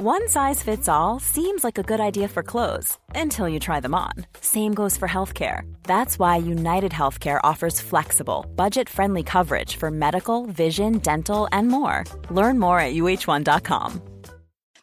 One size fits all seems like a good idea for clothes until you try them on. Same goes for healthcare. That's why United Healthcare offers flexible, budget friendly coverage for medical, vision, dental, and more. Learn more at uh1.com.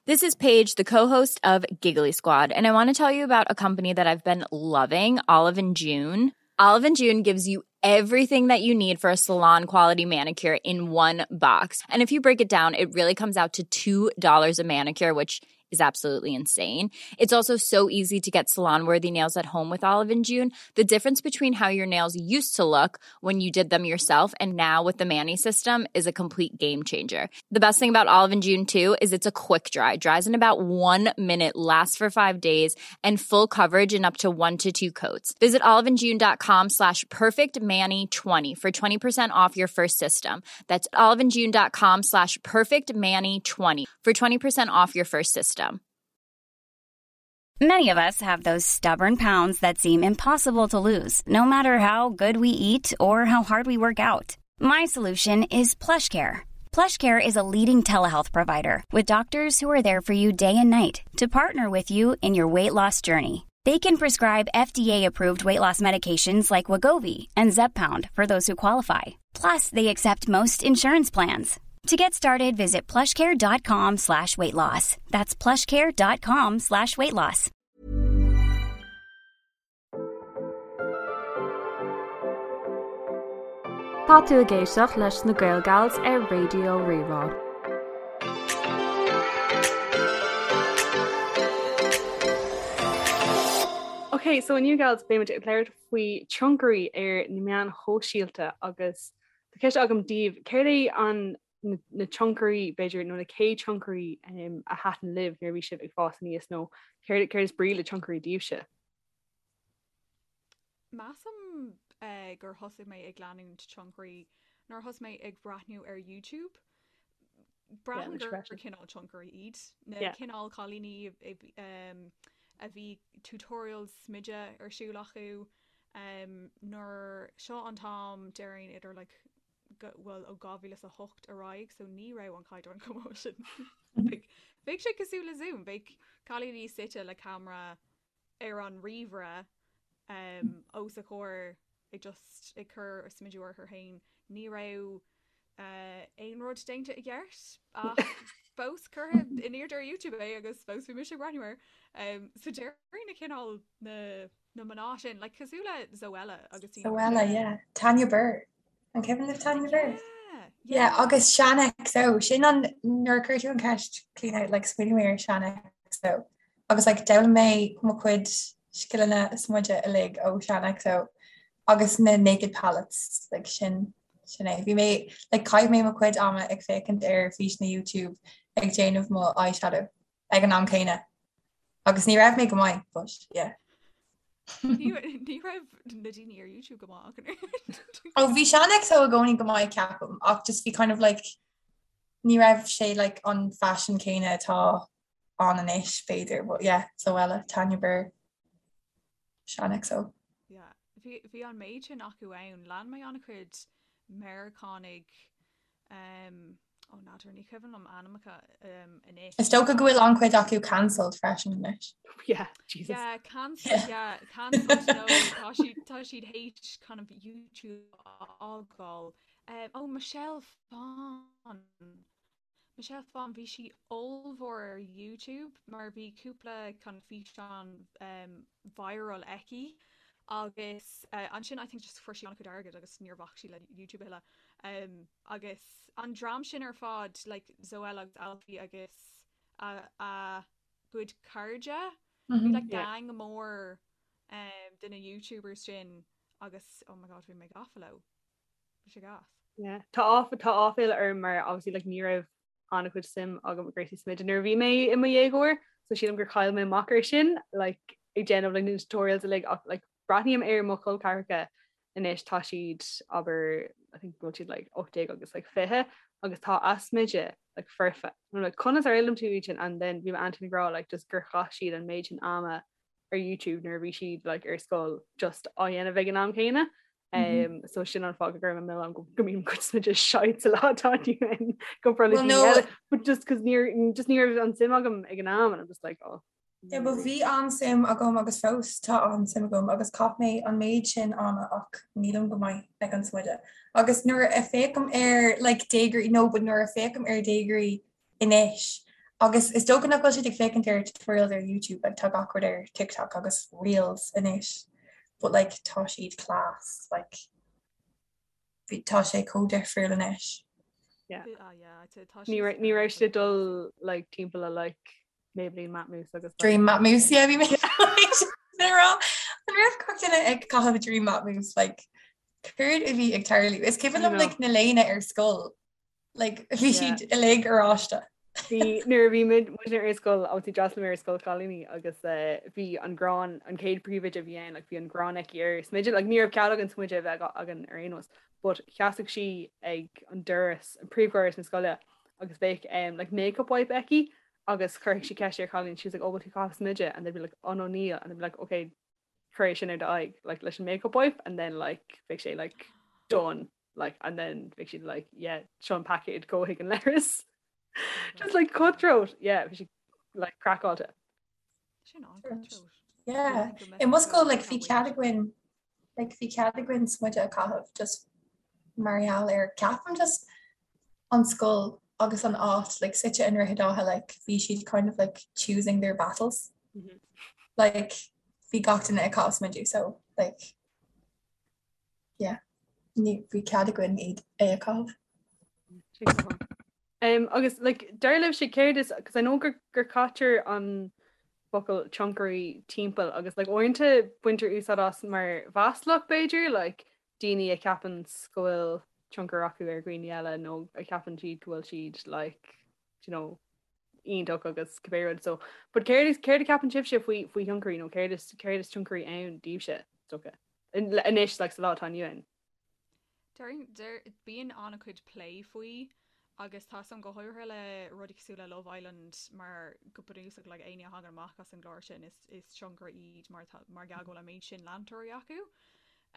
This is Paige, the co-host of Giggly Squad, and I want to tell you about a company that I've been loving, Olive and June. Olive and June gives you everything that you need for a salon quality manicure in one box. And if you break it down, it really comes out to $2 a manicure, which is absolutely insane. It's also so easy to get salon worthy nails at home with Olive and June. The difference between how your nails used to look when you did them yourself and now with the Manny system is a complete game changer. The best thing about Olive and June too is it's a quick dry. Dries in about 1 minute, lasts for 5 days, and full coverage in up to 1 to 2 coats. Visit oliveandjune.com slash perfectmanny20 for 20% off your first system. That's oliveandjune.com slash perfectmanny20 for 20% off your first system. Many of us have those stubborn pounds that seem impossible to lose, no matter how good we eat or how hard we work out. My solution is PlushCare. PlushCare is a leading telehealth provider with doctors who are there for you day and night to partner with you in your weight loss journey. They can prescribe FDA-approved weight loss medications like Wegovy and Zepbound for those who qualify. Plus, they accept most insurance plans. To get started, visit plushcare.com slash weight loss. That's plushcare.com slash weight loss. Tá tú ag éisteacht leis na Gael Gals ar Raidió Rí-Rá. Ok, so inniu gals beimid ag labhairt faoi tionchairí ar na meáin shóisialta agus Tá ceist agam daoibh, céard é an na tionchairí b'fhéidir nó na chéad tionchairí a thaitin libh nuair a bhí sibh ag fás aníos nó céard céard is brí le tionchairí daoibhse? Measaim gur thosaigh mé ag leanúint tionchairí nuair a thosaigh mé ag breathnú ar YouTube. Braithim gur cineál tionchairí iad na cineál cailíní a bhí tutorials smididh ar siúl acu nuair seo an t-am déarfainn idir like bhuel ó 2008 ar aghaidh so ní raibh an caighdeán chomh maith sin. Bheadh sé cosúil le Zoom, bheadh cailíní suite le camera ar an ríomhaire os a chomhair ag just ag cur smideadh orthu féin. Ní raibh aon rud déanta i gceart ach fós curtha in airde ar YouTube é agus fós bhí mise ag breathnú air. So déarfainn na cineál na na mná sin, like cosúil le Zoella agus Zoella, yeah. Tanya Burr. An cuimhin libh Tanya Burr? Yeah, yeah. Agus Shaaanxo, sin an nuair a chuir tú an ceist Clíona like smaoinigh mé ar Shaaanxo. Agus like d'fhoghlaim mé mo chuid scileanna smididh uilig ó Shaaanxo agus na naked palettes like sin sin é. Bhí mé like chaith mé mo chuid ama ag féachaint ar físeanna YouTube ag déanamh mo eyeshadow ag an am céanna. Agus ní raibh mé go maith, but yeah. Ní raibh na daoine ar YouTube go maith ach Ó bhí Shaaanxo i gcónaí go maith ceapaim ach just bhí kind of like ní raibh sé like an fashion céanna atá ann anois b'fhéidir, but yeah, Zoella, Tanya Burr, Shaaanxo. Yeah, bhí bhí an méid sin acu ann. Lean mé an-chuid Meiriceánaigh um, Ó n'fheadar, ní cuimhin liom ainmneacha anois. Is dócha go bhfuil an-chuid acu cancelled freisin anois. Yeah, Jesus. Yeah, cancelled, yeah, cancelled, no, tá siad, tá siad théis kind of YouTube a fhágáil. Um, oh, Michelle Phan. Michelle Phan, bhí sí ollmhór ar YouTube mar bhí cúpla kind of físeán um, viral aici agus uh, ansin I think just fuair sí an-chuid airgid agus níor bhac sí le YouTube a thuilleadh. Um, agus an dream sin ar fad, like Zoella agus Alfie agus a, a gcuid cairde, bhí like gang mór um, de na YouTubers sin agus oh my god bhí mé gafa leo. Bhí sé gas. Yeah. Tá áf tá áiféala orm mar obviously like ní raibh an-chuid suim agam i gcúrsaí smididh nuair a bhí mé i mo dhéagóir, so sílim gur chaill mé amach air sin like ag déanamh like na tutorials uilig ach like breathnaím ar mo chol ceathracha anois tá siad abair I think go bhfuil siad like 18 agus like 20 agus tá a smideadh like foirfe. I'm like conas ar fhoghlaim tú iad sin and then bhí m'aintín ag rá like just gur chaith siad an méid sin ama ar YouTube nuair a bhí siad like ar scoil just á dhéanamh ag an am céanna. Um, so sin an fáth go gcuirim an milleán go mbíonn mo chuid smididh shite sa lá atá inniu ann comparáid le daoine eile, but just cos níor just ní raibh an suim agam ag an am and I'm just like oh. Yeah, but bhí an-suim agam agus fós tá an-suim agam agus chaith mé an méid sin ama ach nílim go maith ag an smideadh. Agus nuair a féachaim ar like déagóirí no but nuair a féachaim ar déagóirí anois agus is dócha nach bhfuil siad ag féachaint ar tutorials ar YouTube like tá gach rud ar TikTok agus Reels anois but like tá siad class like bhí tá sé chomh difriúil anois. Yeah. Ah, yeah, tá Ní raibh ní raibh siad dul like timpeall le like Maybelline Matte Mousse agus Dream Matte Mousse yeah bhí mé rá an raibh gach duine ag caitheamh Dream Matte Mousse like céard a bhí ag tarlú is cuimhin liom like na léine ar scoil Like, bhí siad uilig oráiste. Bhí nuair a bhí muid muidne ar scoil obviously d'fhreastail mé ar scoil chailíní agus eh, bhí an ghráin an chéad príomhoide a bhí ann like, bhí an ghráin aici ar smideadh like, ní raibh cead againn smideadh a bheith againn ar aon nós but sheasadh sí ag an doras an príomhdhoras na scoile agus bheadh um, like, makeup wipe aici agus chuirfeadh sí ceist ar chailín she was like oh bhfuil tú ag caitheamh smideadh and they'd be like oh no níl and they'd be like okay cuir é sin ar d'aghaidh like leis an makeup wipe and then like bheadh sé like done like and then bheadh siad like yeah seo an paicéad gabh chuig an leithreas just like cutthroat yeah bhí sí like craiceáilte Sin an-cutthroat. Yeah. I mo scoil like bhí cead againn like bhí cead againn smideadh a chaitheamh just mar gheall ar ceapaim just an scoil agus an áit like suite i nDroichead Átha like bhí siad kind of like choosing their battles. Mm -hmm. Like bhí gach duine ag caitheamh smideadh so like yeah ní bhí cead againn iad é a chaitheamh. Um, agus like, dar libhse céard is cos I know gur, gur caitear an focal tionchairí timpeall agus like, uaireanta baintear úsáid as mar mhaslach b'fhéidir like, daoine a cheapann go bhfuil tionchar acu ar dhaoine eile nó a cheapann siad go bhfuil siad like, you know, iontach agus cibé rud so but céard is céard a cheapann sibhse faoi faoi thionchairí nó céard is céard is tionchairí ann daoibhse is dócha anois like sa lá atá inniu ann. Deir deir bíonn an-chuid plé faoi agus tá a fhios agam go háirithe le rudaí cosúil le Love Island mar go bunúsach like éinne a thagann amach as an gclár sin is is tionchairí iad mar tá mar gheall go bhfuil an méid sin leantóirí acu.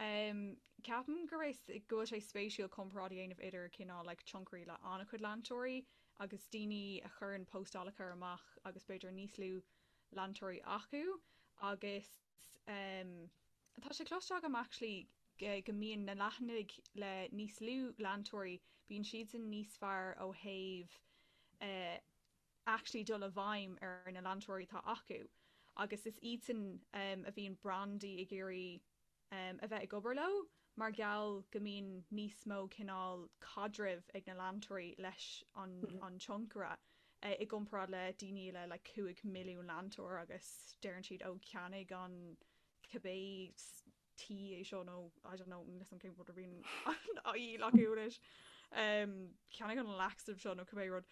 Um, ceapaim go raibh go bhfuil sé spéisiúil comparáid a dhéanamh idir cineál like tionchairí le an-chuid leantóirí agus daoine a chuireann postálacha amach agus b'fhéidir níos lú leantóirí acu agus um, tá sé cloiste agam actually go mbíonn na leathanaigh le níos lú leantóirí, bíonn siadsan níos fearr ó thaobh eh, actually dul i bhfeidhm ar na leantóirí atá acu agus is iadsan um, a bhíonn brandaí ag iarraidh um, a bheith ag obair leo mar gheall go mbíonn níos mó cineál caidrimh ag na leantóirí leis an, an tionchaire eh, i gcomparáid le daoine le like, 5 milliún leantóir agus deireann siad ó ceannaigh an cibé tae é seo nó I don't know níl a fhios agam cén rud a bhíonn á dhíol acu anois. Um, ceannaigh an laxative seo nó cibé rud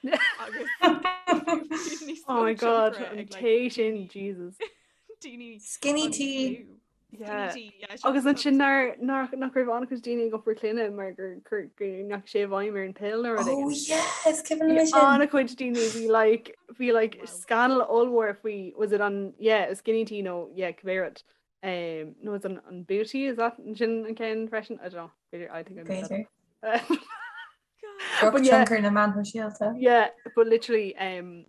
agus níos Oh my god, an tae sin, Jesus. daoine Skinny tea. Yeah. Agus ansin nár nach raibh an-chuid daoine ag iompar clainne mar gur gur ndeachaigh sé i bhfeidhm ar an pill nó rud Oh yes, cuimhin liom sin. An-chuid daoine bhí like bhí like scannal ollmhór faoi was it an yeah skinny tea nó yeah cibé rud. Um, nó is an an booty is that sin an ceann freisin? I don't know. B'fhéidir I think I made that up. But yeah, tionchar na meán sóisialta. Yeah, but literally um,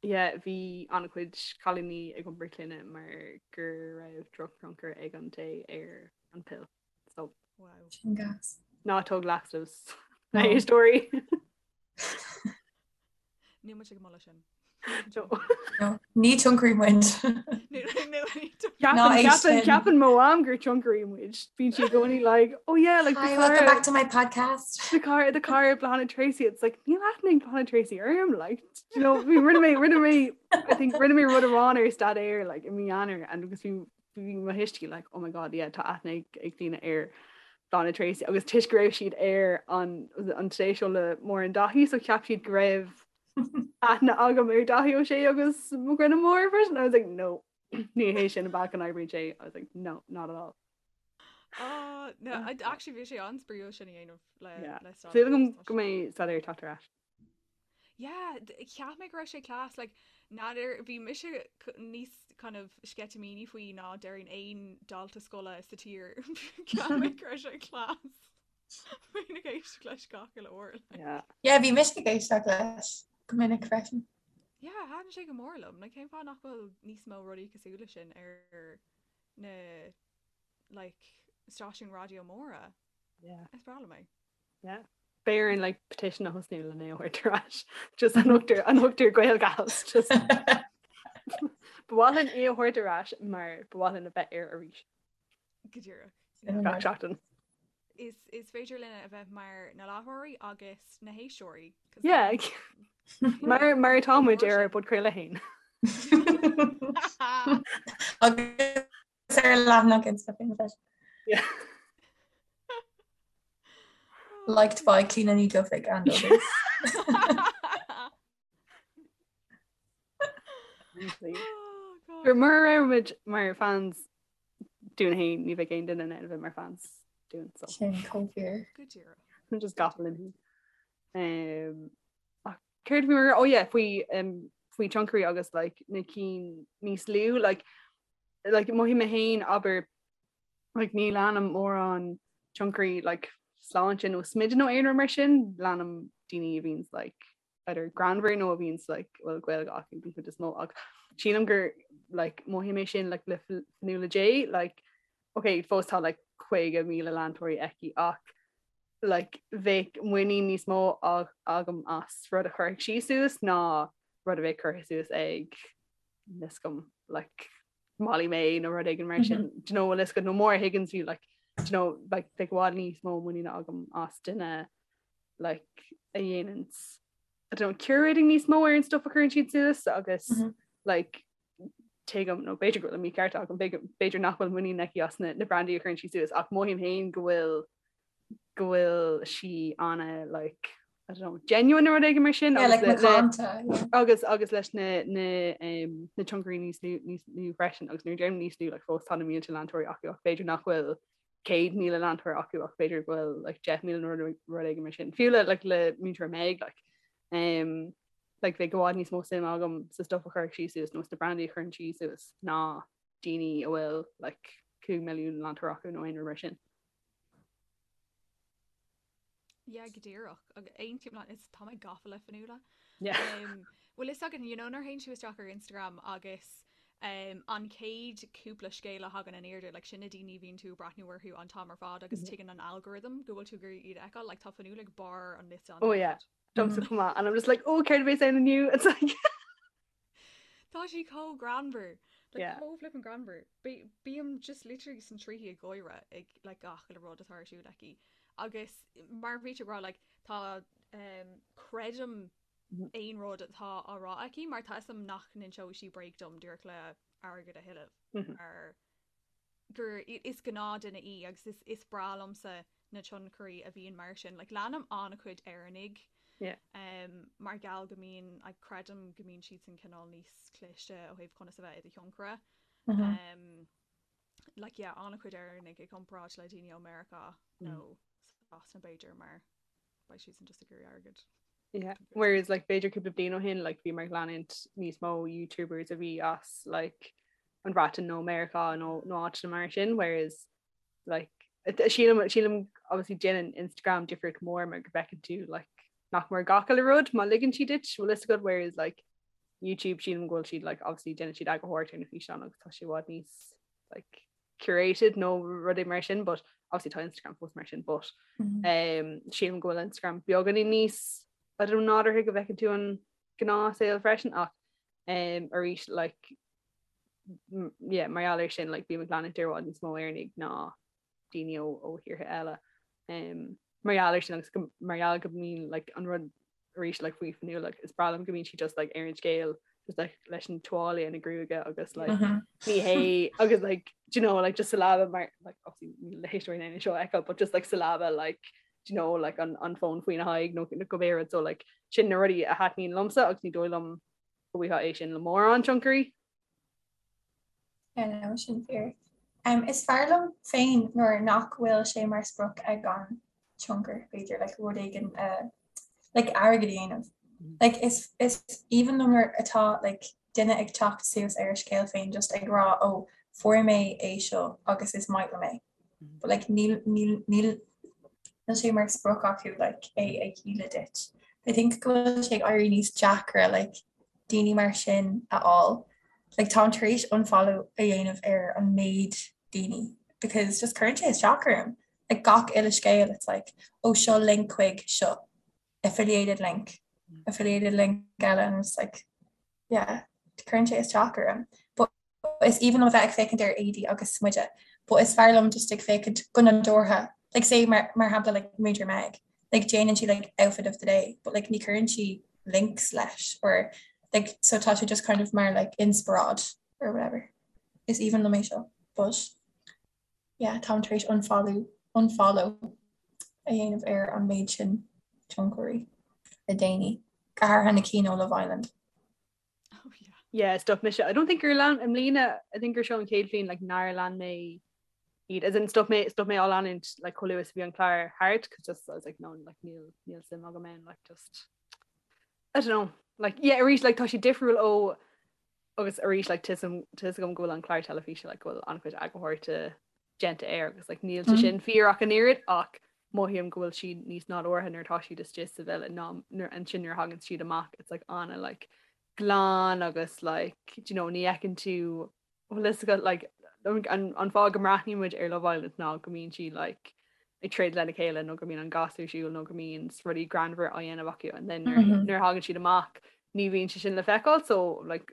yeah, bhí an-chuid cailíní ag iompar clainne mar go raibh drochthionchar ag an tae ar an pill. So wow. Sin gas. Ná tóg laxatives. Na éisteoirí. Níl muid ag moladh sin. No, ní tionchairí muid. Ceapann mo mham gur tionchairí muid. Bíonn sí i gcónaí like, oh yeah, like Hi, welcome back to my podcast. The car the car Bláthnaid Treacy it's like níl aithne ag Bláthnaid Treacy orm like you know bhí rinne mé rinne mé I think rinne mé rud amháin ar staidéar like i mí Eanáir and agus bhí bhí mo thuistí like oh my god yeah tá aithne ag ag daoine ar Bláthnaid Treacy agus toisc go raibh siad ar an an Today Show le Máirín Dáithí so cheap siad go raibh aithne agam ar Dáithí Ó Sé agus Mac Grianna Mór freisin I was like no ní hé sin an bealach a n-oibríonn sé I was like no not at all. Oh, no, I, actually bhí sé an-spraíúil sin a dhéanamh le Yeah. le Súil agam go mbeidh staidéar ag teacht ar ais. Yeah, cheap mé go raibh sé class, like. N'fheadar, bhí mise níos kind of sceitimíní faoi ná déarfainn aon dalta scoile sa tír. Ceapaim go raibh sé class. Bhínn ag éisteacht leis gach uile uair. Yeah. Yeah, bhí mise ag éisteacht leis go minic freisin. Yeah, thaitin sé go mór liom. Like, cén fáth nach bhfuil níos mó rudaí cosúil leis sin ar na like, stáisiúin raidió móra? Yeah. Is breá liom é. Yeah. Beidh orainn like petition a thosnú lena thabhairt ar ais. Just an thugtar an thugtar Gaelgals just Ba mhaith linn é a thabhairt ar ais mar ba mhaith linn a bheith air arís. Go díreach. Gach seachtain. Is, is féidir linn a bheith mar na láithreoirí agus na héisteoirí. Yeah. Mar mar atá muid ar ár bpodchraoladh féin. Agus ar leathanach Insta féin freisin. Yeah. Liked by Clíona Ní Dhufaigh and others. Gur mura raibh muid mar fans dúinn féin ní bheadh aon duine in ann a bheith mar fans dúinn so. Sin chomh fíor. Go díreach. Just gafa linn féin. Um, ach céard bhí mar oh yeah, faoi um, faoi tionchairí agus like, na cinn níos lú like, like, mothaím mé féin abair like, ní leanaim mórán tionchairí like, sláinte nó smididh nó aon rud mar sin, leanaim daoine a bhíonns like, either greannmhar nó a bhíonns like, bhfuil Gaeilge acu den chuid is mó ach sílim gur like, mothaím é sin like, le Fionnuala J like, ok fós tá like, 50,000 leantóirí aici ach like, bheadh muinín níos mó agam as rud a chuirfeadh sí suas ná rud a bheadh curtha suas ag níl a fhios agam like, Molly Mae nó rud éigin mar sin do you know bhfuil a fhios agat nó Maura Higgins fiú like do you know like bheadh i bhfad níos mó muiníne agam as duine like a dhéananns I don't know curating níos mó ar an stuff a chuireann siad suas agus mm -hmm. like tuigim nó b'fhéidir go bhfuil an mícheart agam b'fhéidir nach bhfuil muinín aici as na, na brandaí a chuireann sí suas ach mothaím féin go bhfuil go bhfuil sí ana like I don't know, genuine nó rud éigin mar sin yeah, like macánta, yeah. agus agus leis na na um, na tionchairí níos lú níos lú freisin agus nuair a deirim níos lú like, fós tá na mílte leantóirí acu ach b'fhéidir nach bhfuil 100,000 leantóir acu ach b'fhéidir go bhfuil like, 10,000 nó rud rud éigin mar sin. Fiú le like, le múinteoir Meg like, um, like, bheadh i bhfad níos mó suim agam sa stuff a chuirfeadh sí suas nó sna brandaí a chuireann sí suas ná daoine a bhfuil like, 5 milliún leantóir acu nó aon rud mar sin. Yeah, go díreach. Agus aontaím leat, is tá mé gafa le Fionnuala. Yeah. Um, bhfuil fhios agat, you know, nuair a théann tú isteach ar Instagram agus um, an chéad cúpla scéal a thagann in airde, like, sin na daoine a bhíonn tú ag breathnú orthu an t-am ar fad agus mm-hmm. tuigeann an algorithm go bhfuil tú ag iarraidh iad a fheiceáil, like, tá Fionnuala ag barr an liosta an Oh yeah. Domsa chomh maith. And I'm just like, oh, céard a bheas ann inniu? It's like Tá sí chomh greannmhar. Like, Yeah. chomh flippin' greannmhar. Bí- Bím just literally sna trithí ag gáire ag like, gach uile rud atá ar siúl aici. Agus mar bhí tú ag rá like, tá um, creidim Mhm. aon rud atá á rá aici mar tá fhios agam nach n-inseoidh sí bréag dom díreach le airgead a thuilleamh. Mhm. Mar gur is gnáthduine í agus is is breá liomsa na tionchairí a bhíonn mar sin. Like leanaim an-chuid Éireannaigh Yeah. um, mar gheall go mbíonn like, creidim go mbíonn siadsan cineál níos cliste ó thaobh conas a bheith i do thionchaire. Mm -hmm. Um, like yeah, an-chuid Éireannaigh i gcomparáid le daoine ó Meiriceá nó Sasana b'fhéidir mar beidh siadsan just ag iarraidh airgead. Yeah. Whereas like b'fhéidir cúpla bliain ó shin like bhí mé ag leanúint níos mó YouTubers a bhí as like an Bhreatain nó Meiriceá nó nó áiteanna mar sin whereas like sílim sílim obviously déanann Instagram difríocht mór mar go bhfeiceann tú like nach mór gach uile rud má ligeann siad duit bhfuil fhios agat whereas like YouTube sílim go bhfuil siad like obviously déanann siad eagarthóireacht ar na físeáin agus tá sé i bhfad níos like curated nó rudaí mar sin but obviously tá Instagram fós mar sin but mm -hmm. um, sílim go bhfuil Instagram beagáinín níos I don't know nádúrtha go bhfeiceann tú an gnáthshaol freisin ach um, arís like yeah, mar gheall air sin like, bím ag leanúint i bhfad níos mó Éireannaigh ná daoine ó, ó thíortha eile. Um, mar gheall air sin agus go, mar gheall go mbíonn like, an rud arís like, faoi Fionnuala like, is breá liom go mbíonn sí just like, ar an scéal just like, leis an tuáille ina gruaige agus like, mm -hmm. ní hé agus like, do you know, like, just sa leaba mar like, obviously níl na héisteoirí in ann seo a fheiceáil but just like, sa leaba like, do you know, like, an, an fón faoina haghaidh nó nó cibé rud so like, sin na rudaí a thaitníonn liomsa agus ní dóigh liom go bhfaighfeá é sin le mórán tionchairí. Yeah, no, sin fíor. Um, is fearr liom féin nuair nach bhfuil sé mar sprioc ag an tionchar, b'fhéidir, like, rud éigin uh, like, airgead a dhéanamh. Mm. Like, is, is aoibhinn liom nuair atá like, duine ag teacht suas ar a scéal féin just ag rá oh fuair mé é seo agus is maith liom é. But like níl níl níl níl sé mar sprioc acu like é a dhíol duit. I think go bhfuil sé ag éirí níos deacra like daoine mar sin a fháil. Like táim tar éis unfollow a dhéanamh ar an méid daoine because just cuireann sé isteach orm. Like gach uile scéal it's like oh seo link chuig seo. affiliated link affiliated link eile and it's like yeah cuireann sé isteach orm. But is aoibhinn liom a bheith ag féachaint ar éadaí agus smideadh but is fearr liom just ag féachaint go nádúrtha like say mar mar shampla like Múinteoir Meg like déanann sí like outfit of the day but like ní chuireann sí links leis or like so tá sé just kind of mar like inspioráid or whatever. Is aoibhinn liom é seo but yeah táim tar éis unfollow unfollow a dhéanamh ar an méid sin tionchairí le déanaí, go háirithe na cinn ó Love Island. Oh yeah. Yeah, stop mise. I don't think gur lean i mbliana, I think gur seo an chéad bhliain like nár lean mé iad. As in stop mé stop mé á leanúint like chomh luath is a bhí an clár thart cos just I was like no like níl níl suim agam ann like just I don't know like yeah arís like tá sé difriúil ó agus arís like tá a fhios agam go bhfuil an clár teilifíse like go bhfuil an-chuid eagarthóireachta déanta air agus like níl sé sin fíor ach an oiread ach mothaím go bhfuil siad níos nádúrtha nuair atá siad istigh sa villa ná nuair ansin nuair a thagann siad amach it's like ana like glan agus like do you know ní fheiceann tú bhfuil fhios agat like an an fáth go mbreathnaíonn muid ar Love Island ná go mbíonn siad like ag troid lena chéile nó go mbíonn an gas ar siúl nó go mbíonn rudaí greannmhar á dhéanamh acu and then nuair mm-hmm. nuair a thagann siad amach ní bhíonn sé sin le feiceáil so like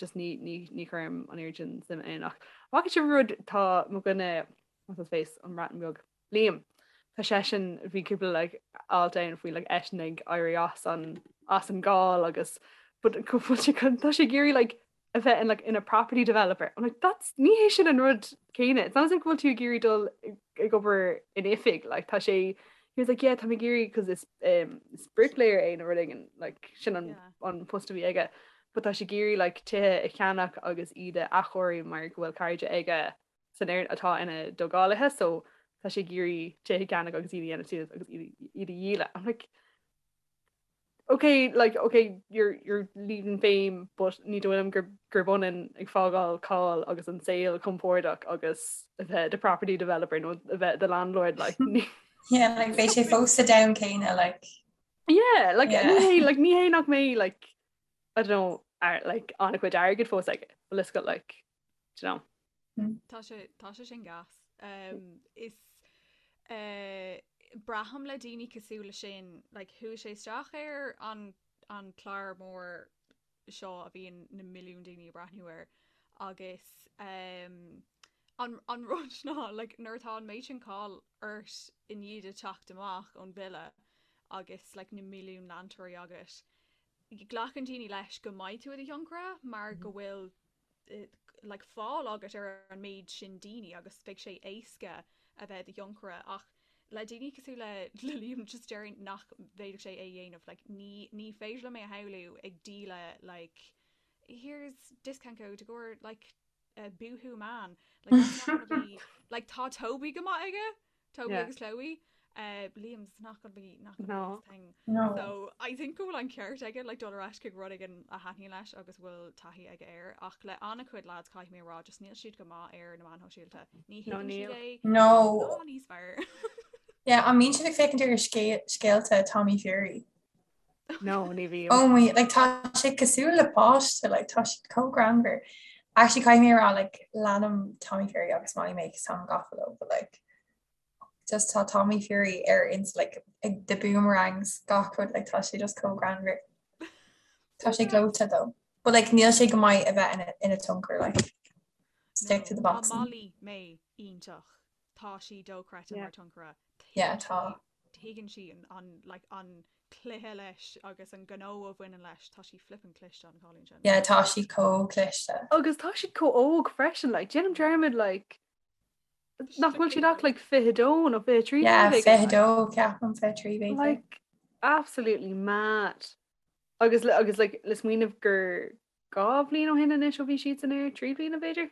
just ní ní ní chuirim an oiread sin suim ann ach bhfaca sibh rud tá mo dhuine what's his face an Bhreatain Bheag Liam tá seisean bhí cúpla like alt ann faoi like eisean ag éirí as an as an gcáil agus but go bhfuil sé tá sé ag iarraidh like a bheith in like ina property developer. I'm like that's ní hé sin an rud céanna. It's not as if go bhfuil tú ag iarraidh dul ag obair in oifig like tá sé he was like yeah tá mé ag iarraidh cos is um, is bricklayer é nó rud éigin like sin an, yeah. an post a bhí aige but tá sé ag iarraidh like tithe a cheannach agus iad a athchóiriú mar go bhfuil cairde aige san fhoireann atá ina dtógálaithe so tá sé ag iarraidh tithe a cheannach agus iad a dhéanamh suas agus iad iad a dhíol. I'm like ok like ok you're you're leaving fame but ní dóigh liom gur gurb ionann ag fágáil cáil agus an saol compordach agus a bheith i do property developer nó a bheith i do landlord like ní Yeah, like beidh sé fós sa domhan céanna like. Yeah, like yeah. ní hé like ní hé nach mbeidh like I don't know ar like an-chuid airgid fós aige but let's go like do you know. Tá sé tá sé sin gas. Um, is uh, braithim le daoine cosúil le sin, like, chuaigh sé isteach ar an, an clár mór seo a bhíonn na milliúin daoine ag breathnú air agus um, an, an rud ná like, nuair atá an méid sin cáil ort i ndiaidh duit teacht amach ón villa agus like, na milliúin leantóirí agat, glacann daoine leis go mbeidh tú i do thionchaire mar go bhfuil like fáil agat ar an méid sin daoine agus beidh sé éasca a bheith i do thionchaire ach le daoine cosúil le le Liam just déarfainn nach bhféadfadh sé é a dhéanamh like ní ní féidir liom é a shamhlú ag díol like here's discount code i gcomhair like uh, Boohoo Man like that's not gonna be like tá Toby go maith aige Toby yeah. agus Chloe. Uh, Liam's not gonna be not gonna no. be his thing. No. So I think go bhfuil an ceart aige like dul ar ais chuig rud éigin a thaitníonn leis agus bhfuil taithí aige air ach le an-chuid lads caithfidh mé a rá just níl siad go maith ar na meáin shóisialta. Ní No, thuigeann siad níl. é No. ná níos fearr. Yeah, an mbíonn sibh ag féachaint ar scéalta Tommy Fury? No, ní bhím. Oh my, like tá sé cosúil le páiste, like tá siad chomh greannmhar. Actually caithfidh mé a rá like leanaim Tommy Fury agus Molly-Mae cos táim gafa leo, but like just tá Tommy Fury ar ins like ag the boomerangs gach rud like tá sé just chomh greannmhar. Tá sé gleoite though. But like níl sé go maith a bheith ina ina tionchaire like stick to the No, tá boxing. Molly-Mae iontach. Tá sí dochreidte Yeah. mar tionchaire. Yeah, Tuigeann tá. sí tuigeann sí an an like an cluiche leis agus an gnó a bhaineann leis. Tá sí flippin' cliste an cailín sin. Yeah, tá sí chomh cliste. Agus tá siad chomh óg freisin, like, déanaim dearmad, like, nach bhfuil siad ach like 22 nó 23 Yeah, nó rud éigin, 22, ceapaim 23 b'fhéidir. Like, absolutely mad. Agus le agus like le smaoineamh gur 2 bhliain ó shin anois ó bhí siadsan air, 3 bliana b'fhéidir?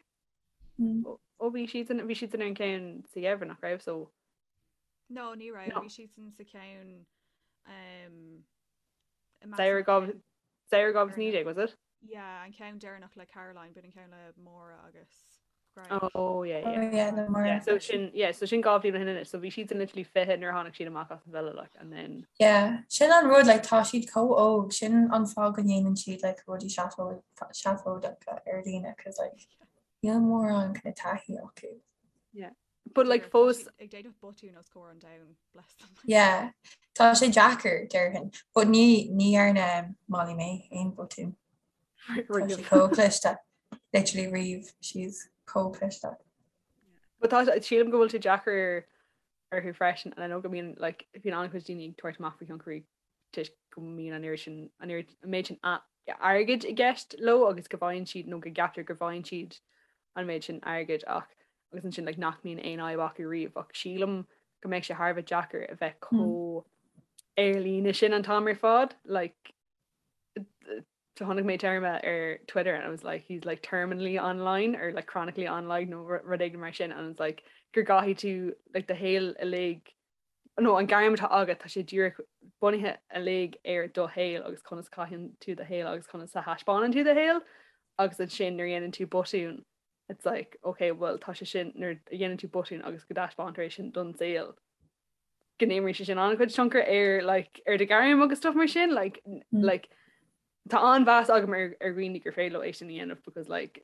Ó bhí siadsan bhí siadsan ar an ceann sa gheimhreadh nach raibh so No, ní raibh, No. bhí siadsan sa cheann um, Samhradh 2019 was it? Yeah, an ceann deireanach le Caroline, b'in an ceann le Máire agus Greg. Oh yeah, yeah. Oh, yeah, le Máire. Yeah, so sin, yeah, so sin 2 bhliain ó shin anois, so bhí siad literally 20 nuair a tháinig siad amach as an villa, like, and then... Yeah, sin an rud, like, tá siad chomh óg, sin an fáth go ndéanann siad, like, rudaí seafóideacha ar líne, cos, like, níl mórán kind of taithí acu. Yeah. But like fós ag déanamh botún os comhair an domhain, bless them. Yeah, tá sé deacair déarfainn, but ní ní dhearna Molly-Mae aon botún. Tá sí chomh cliste, literally riamh, she's chomh cliste. But tá sílim go bhfuil sé deacair orthu freisin, and I know go mbíonn like bíonn an-chuid daoine ag tabhairt amach faoi thionchairí toisc go mbíonn an oiread sin an oiread an méid sin airgid i gceist leo agus go bhfaigheann siad nó go gceaptar go bhfaigheann siad an méid sin airgid ach agus ansin like nach mbíonn aon fhadhb acu riamh ach sílim go mbeadh sé thar a bheith deacair a bheith chomh ar líne sin an t-am ar fad like chonaic mé téarma ar Twitter and I was like he's like terminally online or like chronically online nó rud éigin mar sin and it's like gur gcaithfidh tú like do shaol uilig nó an gairm atá agat, tá sé díreach bunaithe uilig ar do shaol agus conas a chaitheann tú do shaol agus conas a thaispeánann tú do shaol agus ansin nuair a dhéanann tú botún it's like ok well tá sé sin nuair a dhéanann tú botún agus go dtaispeántar é sin don saol go n-imríonn sé sin an-chuid tionchar ar like ar do ghairm agus stuff mar sin like mm. like Tá an-mheas agam ar ar dhaoine gur féidir leo é sin a dhéanamh because like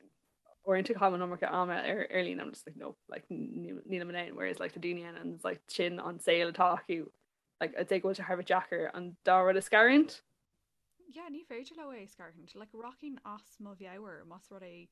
uaireanta caithim an iomarca ama ar ar líne I'm just like no like nílim in ann whereas like tá daoine ann and like sin an saol atá acu like I'd say go bhfuil sé thar a bheith deacair an dá rud a scarúint. Yeah, ní féidir leo é a scarúint. Like rachainn as mo mheabhair más rud é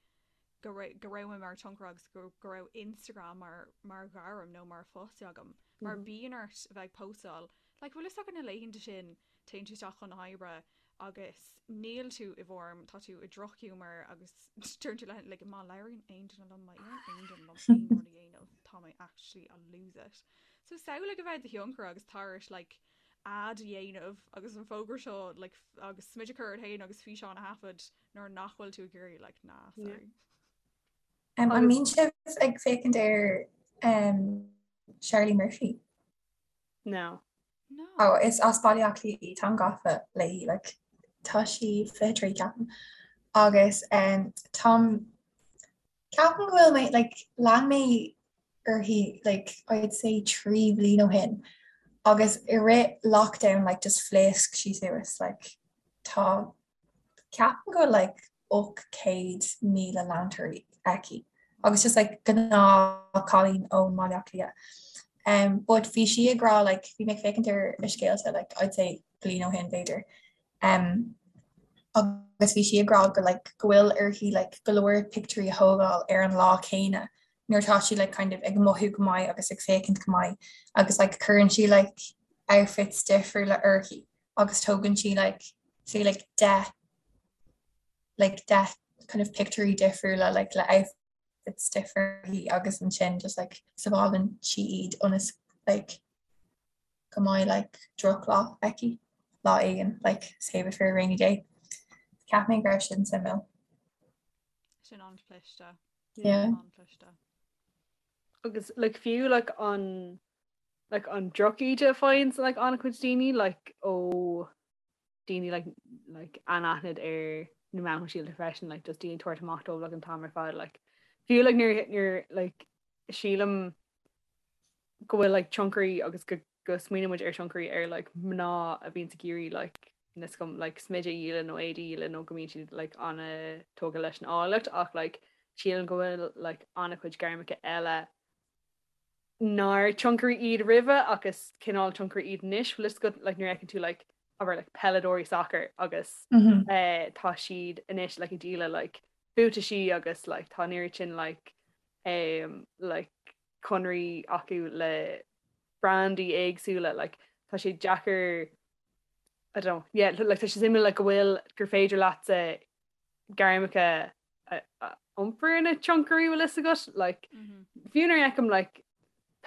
go raibh go raibh mé mar tionchaire agus go go raibh Instagram mar mar ghairm nó mar phost agam. Mar bíonn ort a bheith ag postáil. Like bhfuil fhios agat na laethanta sin téann tú isteach chun na hoibre agus níl tú i bhform, tá tú i drochghiúmar agus deireann tú le like má labhraíonn aon duine liom, má iarrann aon duine liom aon rud a dhéanamh, tá mé actually I'll lose it. So samhlaigh a bheith i do thionchaire agus tar éis like ad a dhéanamh agus an fógra seo like agus smideadh a chur ort féin agus físeán a thaifead nuair nach bhfuil tú ag iarraidh like nah sorry. Um, an mbíonn sibh ag féachaint ar um, Charlie Murphy? No. No. Oh, is as Baile Átha Cliath í, táim gafa léi, like, tá sí 23 ceapaim. Agus um, táim ceapaim go bhfuil mé, like, lean mé uirthi, like, I'd say 3 bhliain ó shin. Agus i rith lockdown, like, just phléasc sí suas, like, tá Ceapaim go bhfuil like 800,000 leantóirí aici agus just like gnáth cailín ón mBaile Átha Cliath. Um, but bhí sí ag rá like bhí mé ag féachaint ar a scéalta like I'd say bliain ó shin b'fhéidir. Um, agus bhí sí ag rá go like go bhfuil uirthi like go leor pictiúirí a thógáil ar an lá céanna nuair atá sí like kind of ag mothú go maith agus ag féachaint go maith agus like cuireann sí like outfits difriúla uirthi agus tógann sí like say like 10 like 10 kind of pictiúirí difriúla like le outfits difriúla agus ansin just like sábhálann sí iad ionas like go mbeidh like drochlá aici lá éigin like save it for a rainy day. Cheap mé go raibh sin suimiúil. Sin an-chliste. Yeah. An-chliste. Agus like fiú like an like an drochíde a faigheann like an-chuid daoine like ó daoine like like anaithnid ar na meáin shóisialta freisin like just daoine tabhairt amach dóibh like an t-am ar fad like fiú like nuair nuair like sílim go bhfuil like tionchairí agus go go smaoiníonn muid ar tionchairí ar like mná a bhíonn ag iarraidh like níl a fhios agam like smideadh a dhíol nó éadaí a dhíol nó go mbíonn siad like an-tógtha leis an áilleacht ach like sílim go bhfuil like an-chuid gairmeacha eile nár tionchairí iad roimhe ach is cineál tionchairí iad anois, bhfuil fhios agat like nuair a fheiceann tú like abair like peileadóirí sacair agus mm -hmm. eh, tá siad anois like ag díol like buataisí agus like tá an oiread sin like um, like conraí acu le brandaí éagsúla like tá sé deacair I don't know yeah like tá sé suimiúil like go bhfuil gur féidir leatsa gairmeacha a iompar ina tionchairí bhfuil fhios agat like fiú nuair a fheicim like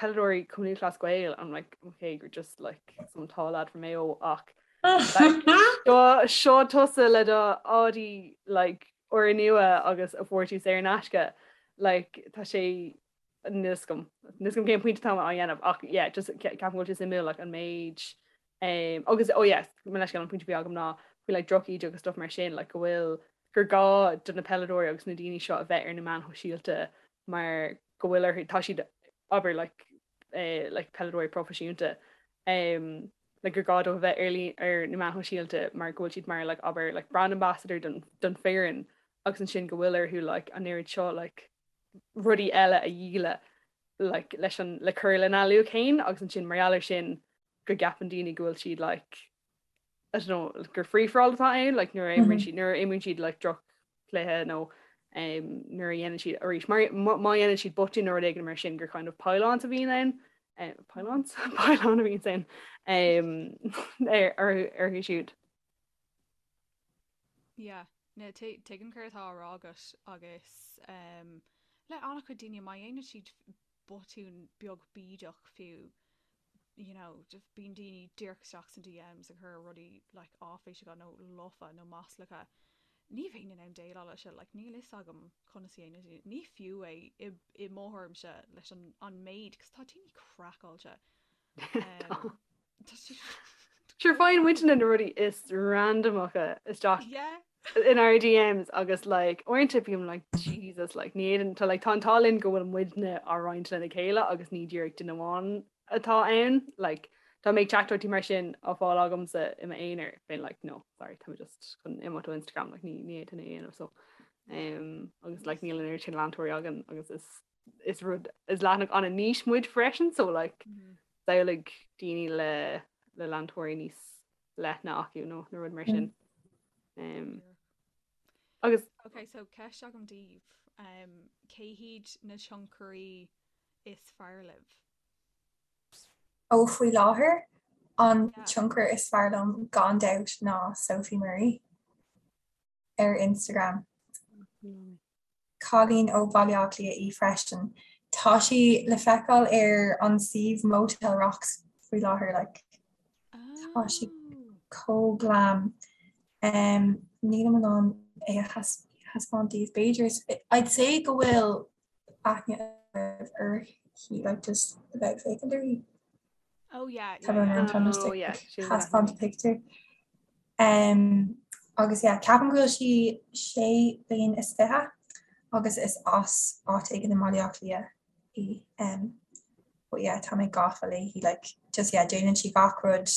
peileadóirí Cumann Lúthchleas Gael I'm like okay you're just like some tall lad from Mayo ach like seo seo tusa le do Audi like úrnua agus a fuair tú saor in aisce like tá sé níl fhios agam níl fhios agam cén pointe atá á dhéanamh ach yeah just ceapaim go bhfuil sé suimiúil like an méid Um, agus oh yes, mo leithscéal an pointe a bhí agam ná faoi like drochíde agus stuff mar sin like go bhfuil. gur gá do na peileadóirí agus na daoine seo a bheith ar na meáin shóisialta mar go bhfuil orthu, tá siad, abair, like, eh, like peileadóirí proifisiúnta, um, like gur gá dóibh a bheith ar, ar na meáin shóisialta mar go bhfuil siad mar like, abair, like brand ambassador don, don foireann agus ansin go bhfuil orthu like an oiread seo like rudaí eile a dhíol like leis an, le cur lena luach féin agus ansin mar gheall air sin go gceapann daoine go bhfuil siad like I don't know, gur free for all atá ann, like nuair a imríonn siad, nuair a imríonn siad like droch-chluiche nó um, nuair a dhéanann siad arís, mar má dhéanann siad botún nó rud éigin mar sin gur kind of pile-ons a bhíonn ann, um, pile-ons? Pile-on a bhíonn ann um, ar, ar, orthu siúd. Yeah, no, tuigim céard atá á rá agat agus um, le an-chuid daoine má dhéanann siad botún beag bídeach fiú, you know, just bíonn daoine díreach isteach san DMs ag cur rudaí like áiféiseacha nó lofa nó maslacha. Ní bheinn in ann déileáil leis seo, like níl fhios agam conas a dhéanann daoine. Ní fiú é i, i mo thuairimse leis an, an méid, cos tá daoine craiceáilte. Um, tá siad Sure faigheann muidne na rudaí is randamacha isteach Yeah. in our DMs agus like uaireanta bím like Jesus like ní fhéadann tá like tá an t-ádh linn go bhfuil muidne á roinnt lena chéile agus ní díreach duine amháin atá ann like dá mbeadh teachtaireachtaí mar sin á fáil agamsa i m'aonar bheinn like no sorry tá mé just chun imeacht ó Instagram like ní ní fhéadfainn é a dhéanamh so um, agus like níl an oiread sin leantóirí againn agus is is rud is leathanach an-niche muid freisin so like mm -hmm. samhlaigh daoine le le leantóirí níos leithne acu nó nó rud mar sin. Um, agus Ok, so ceist agam daoibh um, cé hiad na tionchairí is fearr libh? Ó faoi láthair an yeah. tionchar is fearr liom gan dabht ná Sophie Murray ar Instagram. Cailín ó Bhaile Átha Cliath í freisin. Tá sí le feiceáil ar an suíomh Motel Rocks faoi láthair like. Tá sí chomh glam. Um, nílim in ann é a thaispeáint daoibh b'fhéidir. I'd say go bhfuil aithne uirthi like just a bheith ag féachaint uirthi. Oh yeah, yeah, yeah. Oh, yeah. Thaispeáint picture. Um, agus yeah, ceapaim go bhfuil sí sé bliain is 20 agus is as áit éigin i mBaile Átha Cliath í. Um, but yeah, tá mé gafa léi like, just yeah, déanann sí gach rud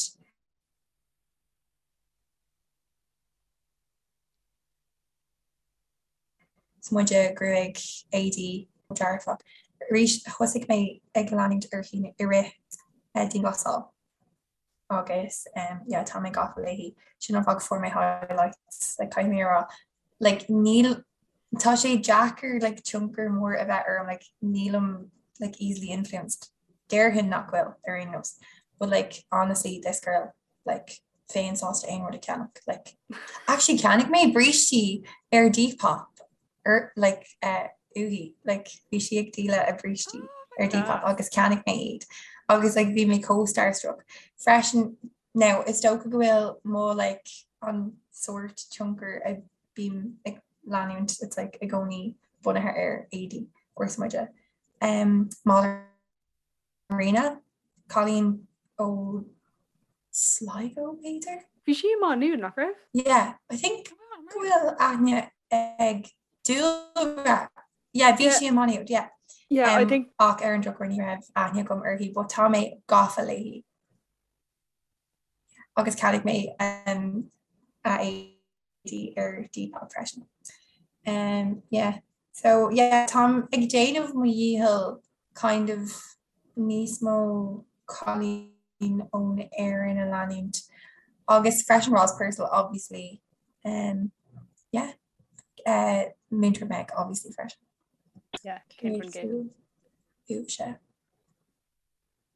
smideadh, gruaig, éadaí, dearfach. Arís, thosaigh mé ag leanúint uirthi i rith dianghlasáil agus yeah tá mé gafa léi. Sin an fáth go fuair mé highlights like caithfidh mé a rá like níl tá sé deacair like tionchar mór a bheith orm like nílim like easily influenced. Déarfainn nach bhfuil ar aon nós but like honestly this girl like bheinn sásta aon rud a cheannach like actually cheannaigh mé brístí ar Depop ar like uh, uaithi like bhí sí ag díol a brístí oh ar Depop agus cheannaigh mé iad agus like bhí mé chomh starstruck freisin now is dócha go bhfuil mo like an sórt tionchar a bím ag leanúint it's like i gcónaí bunaithe ar éadaí or smideadh um, Marina, cailín ó Sligo b'fhéidir? Bhí sí i Má Nuad, nach raibh? Yeah, I think go bhfuil aithne ag Dúlra. Yeah, bhí sí i Má Nuad, yeah. Yeah, I think. Ach ar an drochuair ní raibh aithne agam uirthi, but tá mé gafa léi. Agus cheannaigh mé um, a éadaí ar Depop freisin. Um, yeah. So yeah, táim ag déanamh mo dhícheall kind of níos mó cailín ón Éirinn a leanúint agus freisin Roz Purcell obviously. Um, yeah. Uh, Múinteoir Meg obviously freisin. Yeah, cén uaimhse.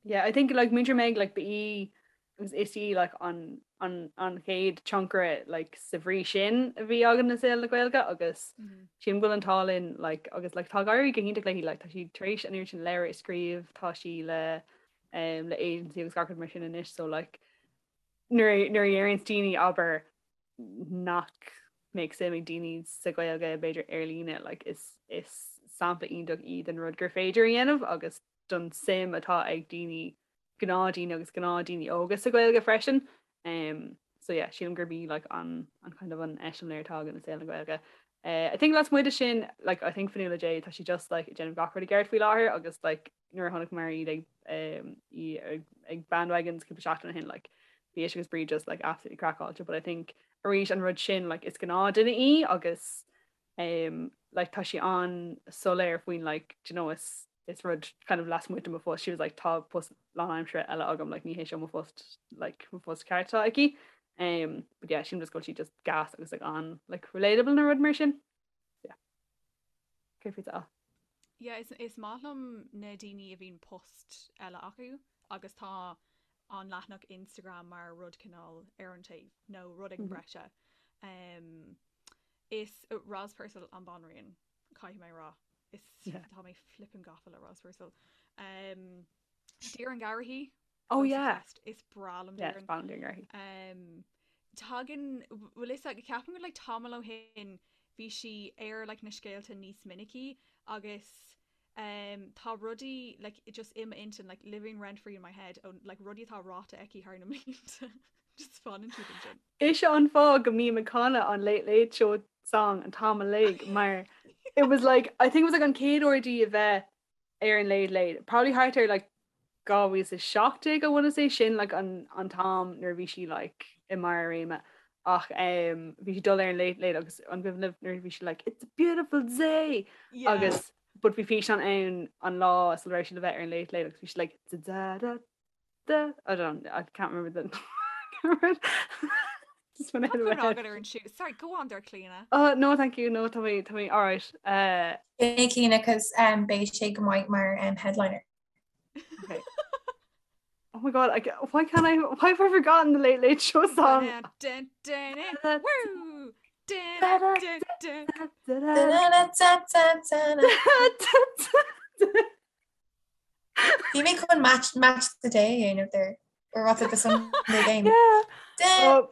Yeah, I think like Múinteoir Meg like ba í agus is í like an an an chéad tionchaire like sa bhrí sin a bhí againn i saol na Gaeilge agus mm -hmm. sílim go bhfuil an t-ádh linn like agus like tá ag éirí go hiontach léi like tá sí tar éis an oiread sin leabhar a scríobh tá sí le um, le agency agus gach rud mar sin anois so like nuair nuair a deireann daoine abair nach mbeadh suim ag daoine sa Ghaeilge b'fhéidir ar líne like is is sampla iontach í den rud gur féidir a dhéanamh agus don suim atá ag daoine, gnáthdhaoine agus gnáthdhaoine óga sa Ghaeilge freisin. So yeah, sílim gurb í like an an kind of an eiseamláir atá againn i saol na Gaeilge. Uh, I think lasmuigh de sin like I think Fionnuala J tá sí just like ag déanamh gach rud i gceart faoi láthair agus like nuair a chonaiceamar iad ag um, í ag, ag Bandwagons cúpla seachtain ó shin like bhí ise agus Bríd just like absolutely craiceáilte but I think arís an rud sin like is gnáthduine í agus um, like tá sí an-soiléir faoin like do you know is is rud kind of lasmuigh de mo phost she was like tá post lánaimseartha eile agam like ní hé seo mo phost like mo phost ceart atá aici um, but yeah sílim just go bhfuil sí just gas agus like an like relatable nó rud mar sin yeah Cé faoi a Yeah, is, is maith liom na daoine a bhíonn post eile acu agus tá an leathanach Instagram mar rud cineál ar an taobh nó rud éigin breise. Um, is uh, Roz Purcell an banríon caithfidh mé rá. Is tá mé flippin gafa le Roz Purcell. Um, Doireann Garrihy. Oh yeah. Is breá liom Doireann. Yeah, Doireann Garrihy. Um, tagann bhfuil fhios agat ceapaim go like tamall ó shin bhí sí ar like na scéalta níos minicí agus um, tá rudaí like just i m'intinn like living rent free in my head ó like rudaí atá ráite aici thar na mblianta just fanann siad ansin. Is é an fáth go mbím ag canadh an Late Late Show song an t-am uilig mar it was like I think it was like an chéad uair di a bheith ar an Late Late probably thart ar like 2017 I want to say sin like an an t-am nuair a bhí sí like i mbarr a réime ach um, bhí sí dul ar an Late Late agus an cuimhin libh nuair a bhí sí like it's a beautiful day Yeah. agus but bhí físeán ann an lá sula raibh sí le bheith ar an Late Late agus bhí sí like da da da da I don't I can't remember the Just went out of my head. Agat ar an siú. Sorry, go on there, Clíona. Oh, no, thank you. No, tá mé tá mé all right. Uh, Beidh Clíona cos um, beidh sé go maith mar um, headliner. okay. Oh my god, I, why can't I why have I forgotten the Late Late Show song? Dun, dun, dun, dun, woo! Dun, dun, dun. Bhí mé chun match match the day a dhéanamh there or what's it the Sunday game. Yeah. Oh.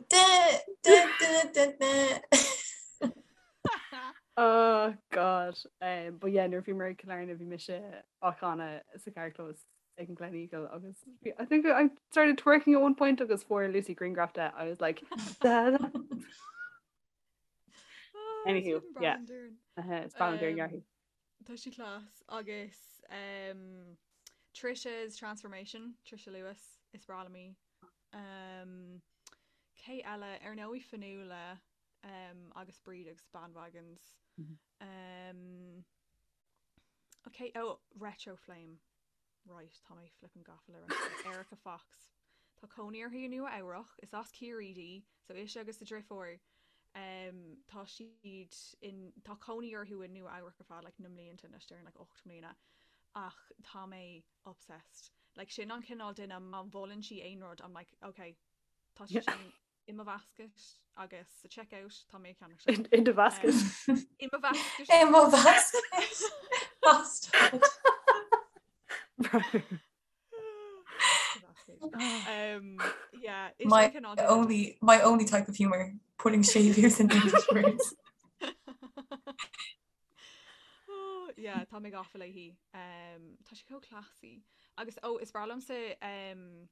Oh god. Um, but yeah, nuair a bhíomar ag Cill Airne bhí mise á chanadh sa carrchlós ag an Gleneagle agus I think I started twerking at one point agus fuair Lucy grianghraf de. I was like da, da. Oh, Anywho, it's yeah. Doireann. Uh, it's Doireann Um, Garrihy. Tá sí class agus um, Trisha's Transformation, Trisha Lewis, is breá liom í. Um, cé eile ar ndóigh Fionnuala um, agus Bríd agus Bandwagons. Mhm. Um, okay, oh, Retro Flame. Right, tá mé flippin gafa le Retro. Erica Fox. Tá cónaí uirthi i Nua Eabhrach, is as Ciarraí di, so ise agus a driofúr um, tá siad in tá cónaí orthu i Nua Eabhrach ar feadh like, na mblianta anois déarfainn like, 8 mbliana ach tá mé obsessed. Like, sin an cineál duine má mholann sí aon rud I'm like, okay, tá sé sin i mo basket agus sa checkout tá mé ag ceannach sin. In the basket. Um, i mo basket. I mo basket. Bastard. Right. Um, yeah, is My sin cineál duine only my only type of humor, putting séimhiú in English words. Oh, yeah, tá mé gafa léi. Um, tá sí chomh classy. Agus oh, is breá liomsa um,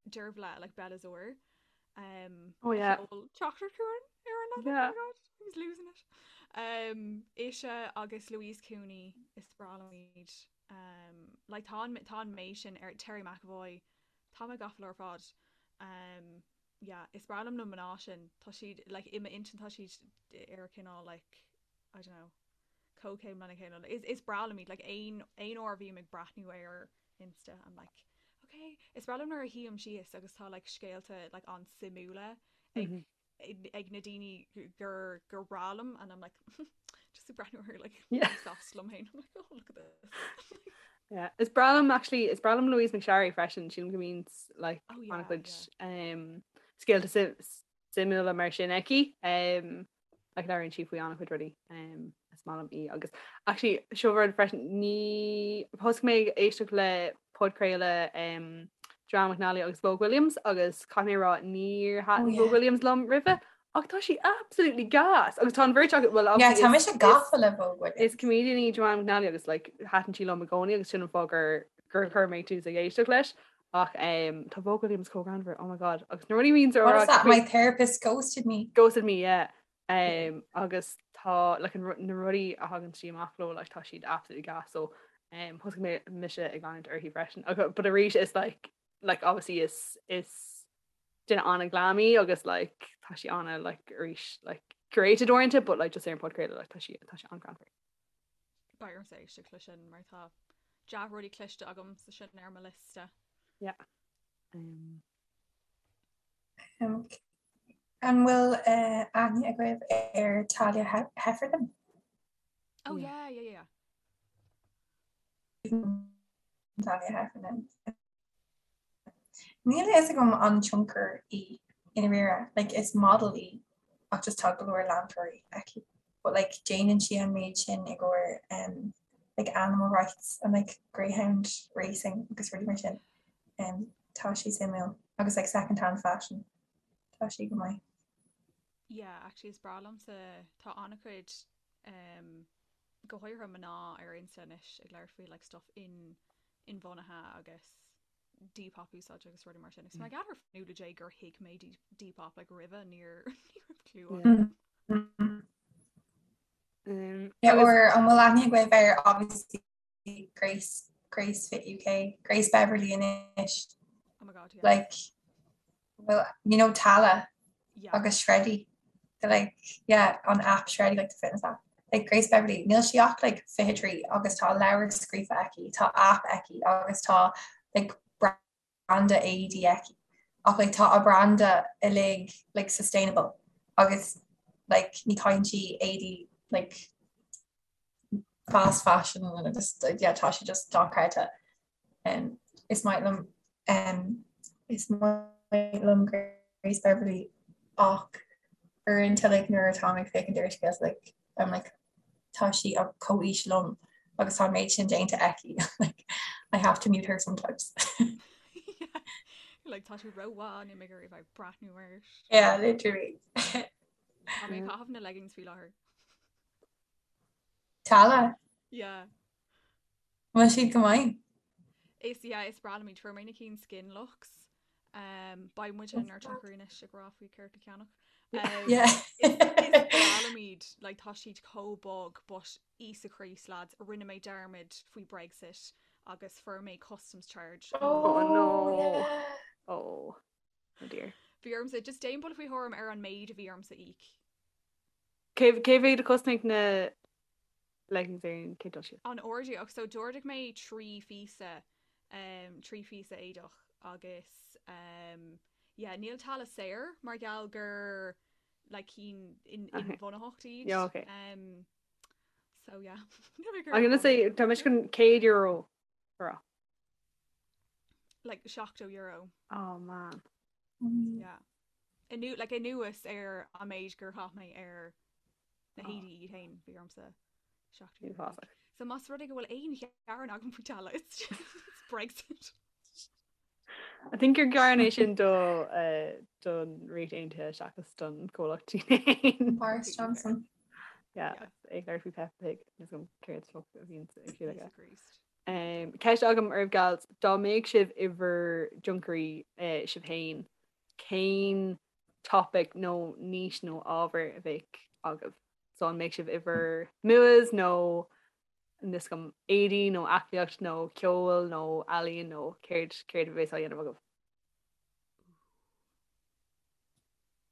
Dearbhla like Bella Zor. Um, Oh, yeah. Teachtar chuan ar an Yeah. Oh my God, I was losing it. Um, ise agus Louise Cooney is breá liom iad. Um, like tá an tá an méid sin ar Terry McAvoy tá mé gafa leo ar fad. Um, yeah, is breá liom na mná sin tá siad like i m'intinn tá siad ar cineál like I don't know comhchéim lena chéile. Is is breá liom iad like aon aon uair a bhím ag breathnú ar Insta I'm like okay is breá liom nuair a shuím síos agus tá like scéalta like an-suimiúla ag Mhm. ag ag na daoine gur gur breá liom and I'm like just ag breathnú ar like Yeah. sásta liom féin I'm like oh look at this Yeah. Is breá liom actually is breá liom Louise McSharry freisin sílim go mbíonn like Oh, yeah, an-chuid um, scéalta suimiúla mar sin aici. Um, like labhraíonn sí faoi an-chuid rudaí um, is maith liom í agus actually seo rud freisin ní thosaigh mé ag éisteacht le podchraoladh um, Joanne McNally agus Vogue Williams agus caithfidh mé a rá níor thaitin Oh, yeah. Vogue Williams liom roimhe ach tá sí absolutely gas agus tá an bheirt acu well Yeah, obviously tá is- mise is- gafa le Vogue Williams. Is comedian í Joanne McNally agus like thaitin sí liom i gcónaí agus sin an fáth gur gur chuir mé tús ag éisteacht leis. Ach um, tá Vogue Williams chomh greannmhar, oh my god, agus na rudaí a bhíonns á What is that? My therapist ghosted me. Ghosted me, yeah. Um, agus tá like, an, na rudaí a thagann sí amach leo like, tá siad absolutely gas so um, thosaigh mé mise ag leanúint uirthi freisin. But arís is like, like obviously is, is duine an-ghlam í agus like, tá sí ana like, arís like, curated uaireanta but like, just ar an podchraoladh like, tá sí tá sí an-ghreannmhar. Beidh ormsa éisteacht le sin mar tá dea-rudaí cloiste agam sa sin ar mo liosta. Yeah. Um. Um, an bhfuil uh, aithne agaibh ar Talia Heffernan? Oh yeah, yeah, yeah. Talia Heffernan. Níl a fhios agam an tionchar í i ndáiríre, like is model í ach just tá go leor leantóirí aici. But like déanann sí an méid sin i gcomhair um, like animal rights and like greyhound racing agus rudaí mar sin. Um, tá sí suimiúil agus like second hand fashion. Tá sí go maith. Yeah, actually is breá liomsa tá an-chuid um, go háirithe mná ar Insta anois ag labhairt faoi like stuff in inbhuanaithe agus Depop a úsáid agus rudaí mar sin. Agus mar gheall ar Nuala J gur thuig mé Depop like roimhe níor ní raibh clue agam. Um, yeah, or an bhfuil aithne agaibh ar obviously Grace Grace Fit UK Grace Beverley anois. Oh my god, yeah. Like well, you know Tala yeah. agus Shreddy the like yeah an app Shreddy like the fitness app like Grace Beverley níl sí ach like 23 agus tá leabhar scríofa aici tá app aici agus tá like branda éadaí aici ach like tá a branda uilig like sustainable agus like ní chaitheann sí éadaí like fast fashion and just yeah tá sé just dochreidte. Um, is maith liom um, is maith liom Grace Beverley ach uaireanta like nuair atá mé ag féachaint ar scéalta like I'm like tá sí ag comhaois liom agus tá an méid sin déanta aici like I have to mute her sometimes. yeah. Like tá sí rómhaith níl mé ag iarraidh bheith breathnú air. Yeah, literally. Tá mé ag caitheamh na leggings faoi láthair. Tala? Yeah. Bhfuil siad go maith? Is yeah, is breá liom iad. Fuair mé na cinn Skin Lux. Um, beidh muid inár dtionchairí anois ag rá faoi céard le ceannach. Um, Yeah. is, is breá liom iad, like, tá siad chomh bog, but Íosa Críost lads, rinne mé dearmad faoi Brexit agus fuair mé customs charge. Oh no. yeah. Oh. Oh dear. Bhí ormsa, just déan buille faoi thuairim ar an méid a bhí ormsa íoc. Cé cé mhéad a chosnaigh na leggings ar an chéad dul síos? An ordú ach so d'ordaigh mé 3 phíosa um, 3 phíosa éadach agus um, yeah, níl Tala saor mar gheall gur like cinn in, Okay. inbhuanaitheacht iad. Yeah, okay. Um, so yeah. I'm gonna say tá mise chun €100 a rá. Like €70. Oh man. Yeah. Anu, like anuas ar an méid gur chaith mé ar na héadaí iad féin bhí ormsa €70. Uafásach. So más rud é go bhfuil aon ghearán agam faoi Tala, it's just it's Brexit. I think gur gearán é sin do uh, don Ríocht Aontaithe seachas don comhlacht féin. Boris Johnson. Yeah, Yeah. ag labhairt faoi Peppa Pig is an céard fuck a bhíonn ag siúl aige. Íosa Críost. Um, ceist agam oraibh gals, dá mbeadh sibh i bhur dtionchairí uh, sibh féin, cén topic nó niche nó ábhar a bheadh agaibh? So an mbeadh sibh i bhur MUAs nó níl a fhios agam éadaí nó aclaíocht nó ceol nó ealaíon nó céard céard a bheas á dhéanamh agaibh?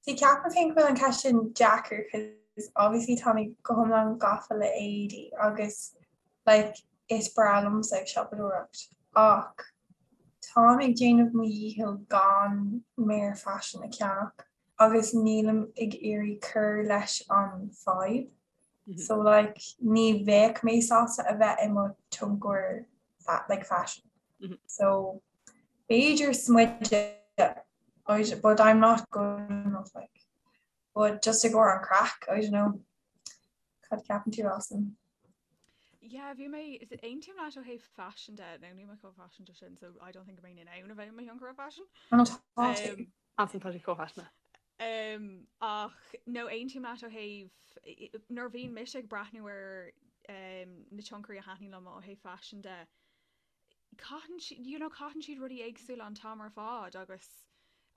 See ceapaim féin go bhfuil an ceist sin deacair cos obviously tá mé go hiomlán gafa le éadaí agus like is breá liomsa ag siopadóireacht ach táim ag déanamh mo dhícheall gan méar faisin a cheannach agus nílim ag iarraidh cur leis an fadhb so like ní bheadh mé sásta a bheith i mo tionchar like fashion so b'fhéidir smideadh but I'm not good enough like but just i gcomhair an craic I don't know cad ceapann tú Alison? Yeah, bhí mé aontaím leat ó thaobh fashion de nó níl mé chomh faiseanta sin so I don't think go mbeinn in ann a bheith i mo thionchaire fashion. Tá Um, Alison tá sí chomh faiseanta. Um, ach no aontaím leat ó thaobh nuair a bhíonn mise ag breathnú ar um, na tionchairí a thaitníonn liom ó thaobh fashion de. Caitheann siad, you know, caitheann siad rudaí éagsúla an t-am ar fad agus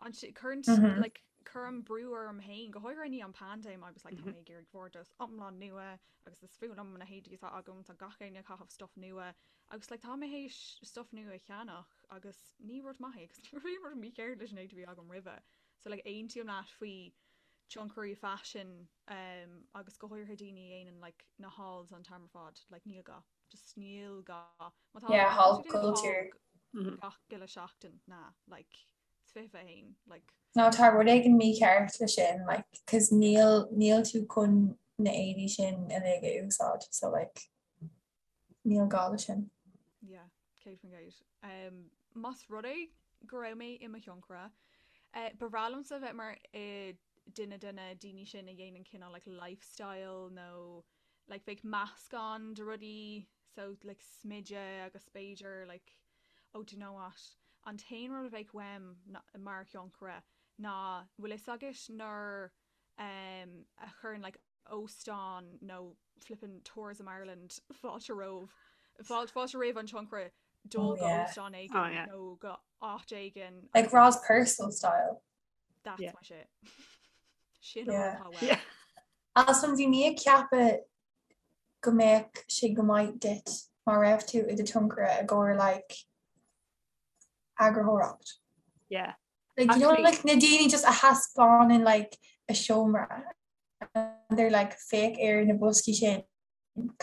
an cuireann mm -hmm. like, cuirim brú orm féin go háirithe i ndiaidh an paindéim agus like, tá mé ag iarraidh bhordas iomlán nua agus is fuath liom na héadaí atá agam tá gach éinne ag caitheamh stuff nua agus like, tá mé théis stuff nua a cheannach agus ní rud maith é agus ní raibh aon rud mícheart leis an éadaí a bhí agam roimhe so like, aontaím leat faoi tionchairí faisin um, agus go háirithe daoine a dhéanann like, na hauls an t-am ar fad like, níl gá. Just níl gá. Má tá Yeah, haul culture. Gach uile seachtain ná like it's 21 like. No tá rud éigin mícheart le sin like cos níl níl tú chun na éadaí sin uilig a úsáid so like níl gá le sin. Yeah, 100%. Um, más rud é go raibh mé i mo thionchaire, uh, ba bhreá liomsa bheith mar uh, duine de na daoine sin a dhéanann cineál like lifestyle nó like bheadh meascán de rudaí so like smideadh agus b'fhéidir like oh do you know what an t-aon rud a bheadh uaim mar thionchaire ná bhfuil fhios agat nuair um a chuireann like óstán nó flippin Tourism Ireland fáilte romh fáilte fáilte roimh an tionchaire dul go óstán éigin oh, yeah. nó go áit éigin like Roz Purcell style That's yeah. my shit. Sin yeah. yeah. Alison bhí mé ag ceapadh go mbeadh sé go maith duit má raibh tú i do tionchaire i gcomhair like eagarthóireacht. Yeah. Like, you know, like na daoine just a thaispeánann like a seomra and they're like féach ar na boscaí sin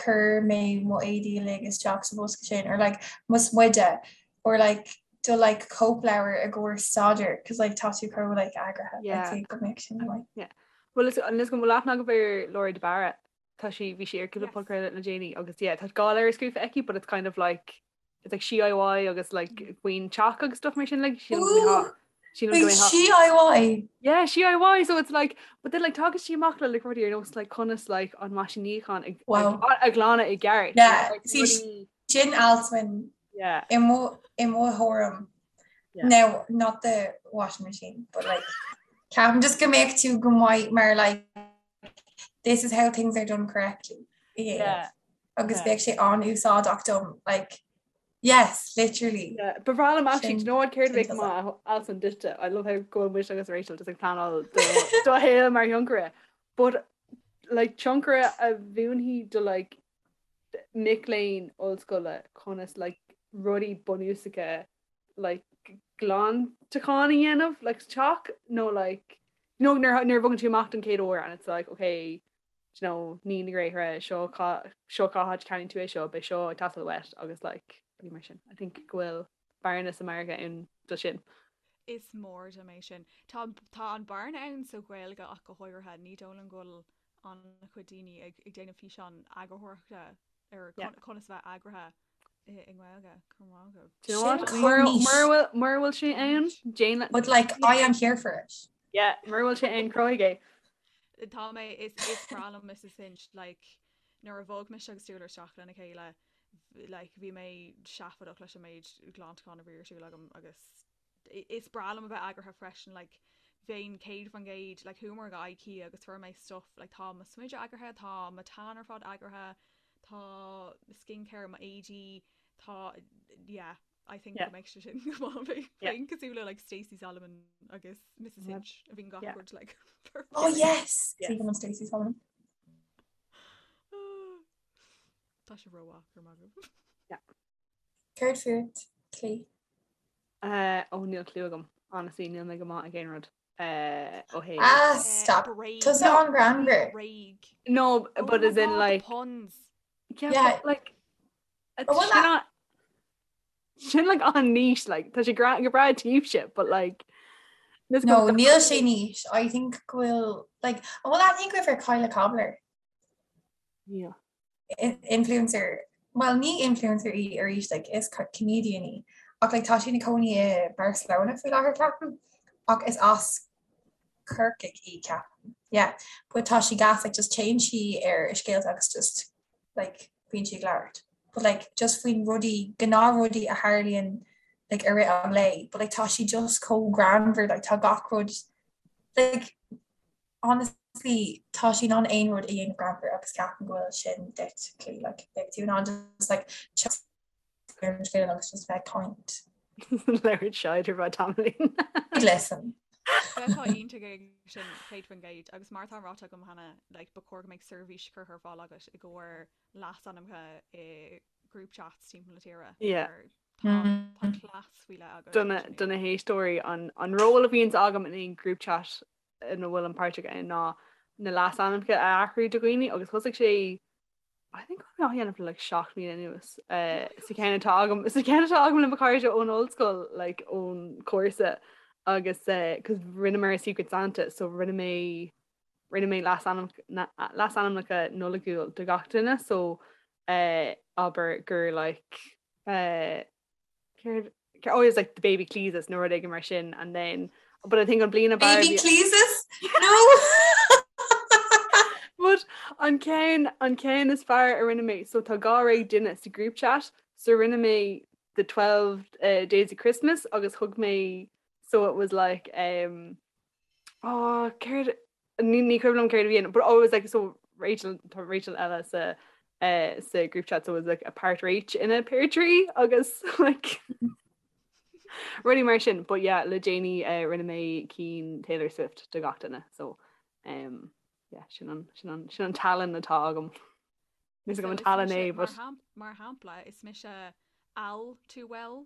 chuir mé mo éadaí uilig isteach sa bhosca sin or like mo smideadh or like do like cóipleabhar i gcomhair staidéir cos like tá tú chomh like eagraithe Yeah. I'd say go mbeadh sin like Yeah. Well is an is go bhfuil aithne agaibh ar Laura de Barra tá sí bhí sí ar cúpla Yes. podchraoladh le déanaí agus yeah tá dhá leabhar scríofa aici but it's kind of like it's like DIY agus like faoin teach agus stuff mar sin like sílim go mbeadh Ooh! sílim Wait, go mbeadh DIY? Yeah, DIY so it's like but then like tagann sí amach le like rudaí ar nós like conas like an meaisín níocháin ag Wow. a ghlanadh i gceart Yeah, like, see, rudaí Sin Alswyn yeah i mo i mo thuairim. Yeah. Now, not the washing machine, but like ceapaim just go mbeadh tú go maith mar like this is how things are done correctly. Yeah. yeah Agus Yeah. bheadh sé an-úsáideach dom like yes, literally. Yeah, ba bhreá liom actually, Sin do you know what céard a bheadh sin maith Alison duitse I love how go bhfuil mise agus Rachel just ag pleanáil do do shaol mar thionchaire but like tionchaire a mhúinfidh do like mic léinn ollscoile conas like rudaí bunúsacha like glantachán a dhéanamh like sa teach nó like you know nuair nuair a bhogann tú amach don chéad uair and it's like okay you know nigh na gréithre seo cá seo cá háit a gceannaíonn tú é seo beidh seo ag teastáil uait agus like rudaí mar sin I think go bhfuil bearna sa margadh ann do sin. Is mór dom é sin. Tá tá an bearna ann sa Ghaeilge ach go háirithe. Ní dóigh liom go bhfuil an-chuid daoine ag ag déanamh físeán eagarthóireachta ar Yeah. conas a bheith eagraithe i i nGaeilge. Go raibh maith agaibh. Do you know what? Sin Mura chomh niche. mura bhfuil mura bhfuil sé ann déan But like I am here for it. yeah mura bhfuil sé ann cruthaigh é. Tá mé is is breá liom Mrs Hinch like nuair a bhog mise agus Stuart isteach lena chéile like bhí mé seafóideach leis an méid glantachán a bhí ar siúl agam agus is breá liom a bheith eagraithe freisin like bheinn 100% like chuamar go IKEA agus fuair mé stuff like tá mo smideadh eagraithe tá mo tan ar fad eagraithe tá skincare mo éadaí tá yeah I think Yeah. go mbeidh sé sin go maith bheinn Yeah. bheinn cosúil le like Stacey Solomon agus Mrs Yeah. Hinch a bhíonn gach Yeah. rud like Oh yes! Yes. Even Stacey Solomon. Tá sé rómhaith go raibh maith agaibh. Céard fút, Clí? Uh, ó níl clue agam. Honestly, níl mé go maith ag aon rud. Uh, ó hey. Ah, Eh, stop. Bréag. Tusa an-ghreannmhar. Bréag. No, Oh but my as in God, the like puns. yeah, Yeah. but, like Oh, well, sin an- sin like an-niche like tá sé gra go breá daoibhse, but like this No, goes- níl sé niche. I think go bhfuil like an bhfuil aithne agaibh ar Kyla Cobbler? Yeah. In- Influencer. Well, ní influencer í arís like is co- comedian í. Ach like tá sí ina cónaí i Barcelona faoi láthair ceapaim. Ach is as Corcaigh í ceapaim. Yeah. But tá sí gas like just téann sí ar a scéalta agus just like bíonn sí ag labhairt. But like just faoin rudaí gnáthrudaí a tharlaíonn like i rith an lae. But like tá sí just chomh greannmhar like tá gach rud like honestly tá sí in ann aon rud a dhéanamh greannmhar agus ceapaim go bhfuil sin duit Clí like beidh tú in ann just like just. ar an scéal agus just bheith ag caint. Labhairt shite ar feadh tamaillín. Listen. Bheifeá iontach ag sin 100% agus mar atá ráite agam cheana like, ba chóir go mbeadh seirbhís curtha ar fáil agat i gcomhair leasainmneacha i group chats timpeall na tíre. Yeah. Mar Tá tá cleas faoi leith agat. Do na do na héisteoirí an an ról a bhíonns agam in aon group chat ina bhfuilim páirteach ann ná na leasainmneacha a athrú do dhaoine agus thosaigh sé I think go raibh mé á dhéanamh le like 7 mbliana anuas sa cheann atá agam sa cheann atá agam le mo chairde ón ollscoil like ón cúrsa agus cos rinneamar Secret Santa so rinne mé rinne mé leasainmneacha Nollaigiúil do gach duine so abair gur like Céard oh it was like the baby Cleesus nó rud éigin mar sin and then but I think an bliain ab fhearr Baby Cleesus? No! But an ceann an ceann is fearr a rinne mé so tá 12 duine sa group chat so rinne mé the 12 uh, days of Christmas agus thug mé so it was like um oh céard Ní ní cuimhin liom céard a bhí ann, but oh it was like so Rachel tá Rachel eile sa uh, sa group chat so it was like a part Rach in a pear tree agus like rudaí mar sin but yeah le déanaí uh, rinne mé cinn Taylor Swift do gach duine so um, yeah, sin an, sin an, sin an tallann atá agam. Níl a fhios agam an tallann é but Mar shampla is mise Al too well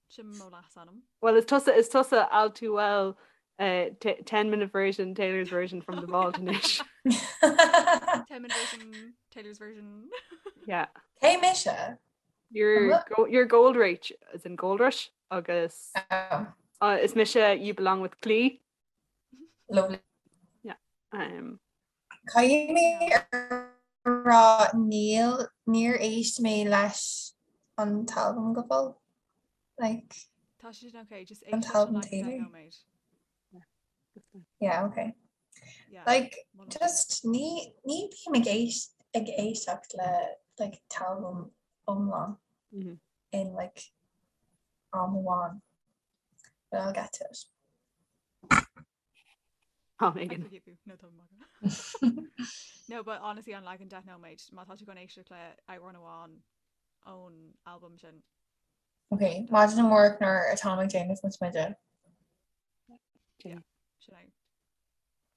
sin mo leasainm. Well is tusa is tusa Al too well uh, 10 minute version Taylor's version from the vault anois. 10 minute version Taylor's version. Yeah. Cé mise? You're go, you're Gold Rach as in Gold Rush agus oh. uh, is mise you belong with Clee. Lovely. Yeah. Um, Caithfidh mé a rá níl, níor éist mé leis an t-albam go fóill. Like, Tá sé sin ok, just an éist leis an t-albam leagan 10 Taylor. nóiméad. Yeah, okay. Yeah, Like, molaim. just ní, ní bím ag éist, ag éisteacht le like t-albam iomlán Mhm. in like am amháin. But I'll get to it. Am I éigin. forgive you. No, tá maith. No, but honestly an leagan 10 nóiméad, má tá tú chun éisteacht le amhrán amháin ón albam sin. Ok, maidin amárach nuair atáim ag déanamh mo smideadh. Yeah, sin é.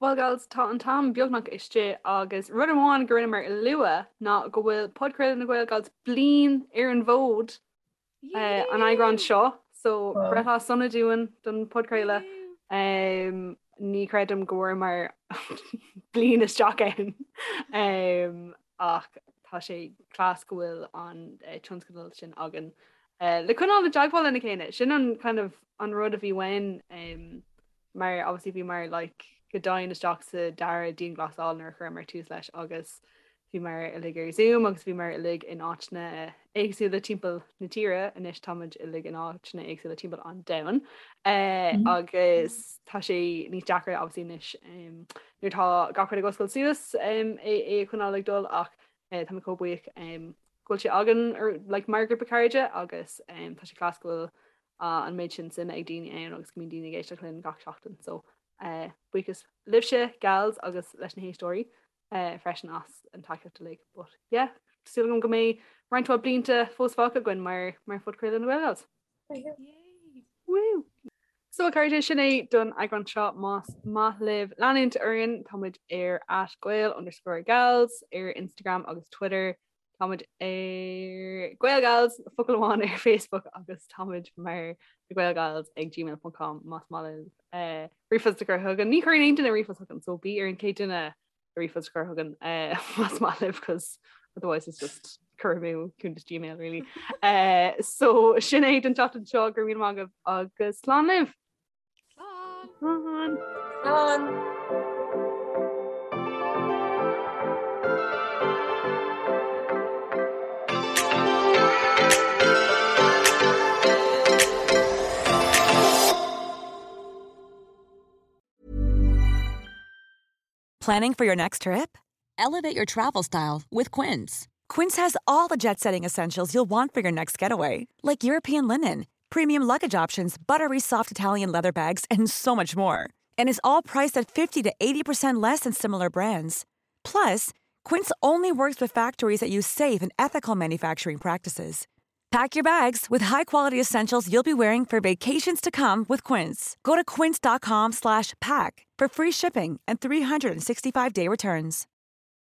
Well gals, tá an t-am beagnach istigh agus rud amháin go rinneamar a lua ná go bhfuil Podchraoladh na GaelGals bliain ar an bhfód. an eagrán seo so breithlá sona dúinn don podchraoladh. Ní chreidim go bhfuaireamar bliain isteach ann ach tá sé class go bhfuil an tionscadal sin againn le coinneáil i dteagmháil lena chéile. Sin an kind of an rud a bhí uainn mar obviously bhíomar like go domhain isteach sa dara dianghlasáil nuair a chuireamar tús leis agus bhíomar uilig ar Zoom agus bhíomar uilig in áiteanna éagsúla timpeall na tíre, anois táimid uilig in áiteanna éagsúla timpeall an domhain agus tá sé níos deacra obviously anois nuair atá gach rud ag oscailt suas é é a choinneáil ag dul ach tá mé chomh buíoch go bhfuil sé againn like mar ghrúpa cairde agus tá sé class go bhfuil an méid sin suime ag daoine ann agus go mbíonn daoine ag éisteacht linn gach seachtain so buíochas libhse gals agus leis na héisteoirí freisin as an tacaíocht uilig but yeah súil agam go mbeidh roinnt mhaith blianta fós fágtha againn mar mar phodchraoladh na GaelGals. Woo! So a chairde sin é don eagrán seo más maith libh leanúint orainn táimid ar at gael underscore gals ar Instagram agus Twitter Táimid ar GaelGals, focal amháin ar Facebook agus táimid mar na GaelGals ag gmail.com más maith libh eh, ríomhphost a chur chugainn. Ní chuireann aon duine ríomhphost chugainn, so bí ar an chéad duine ríomhphost a chur chugainn eh, más maith libh cos otherwise it's just cur amú cuntas Gmail really. Eh, so sin é don tseachtain seo go raibh míle maith agaibh agus slán libh! Slán! Slán! Planning for your next trip? Elevate your travel style with Quince. Quince has all the jet setting essentials you'll want for your next getaway, like European linen, premium luggage options, buttery soft Italian leather bags, and so much more. And is all priced at 50 to 80% less than similar brands. Plus, Quince only works with factories that use safe and ethical manufacturing practices. Pack your bags with high-quality essentials you'll be wearing for vacations to come with Quince. Go to quince.com slash pack for free shipping and 365-day returns.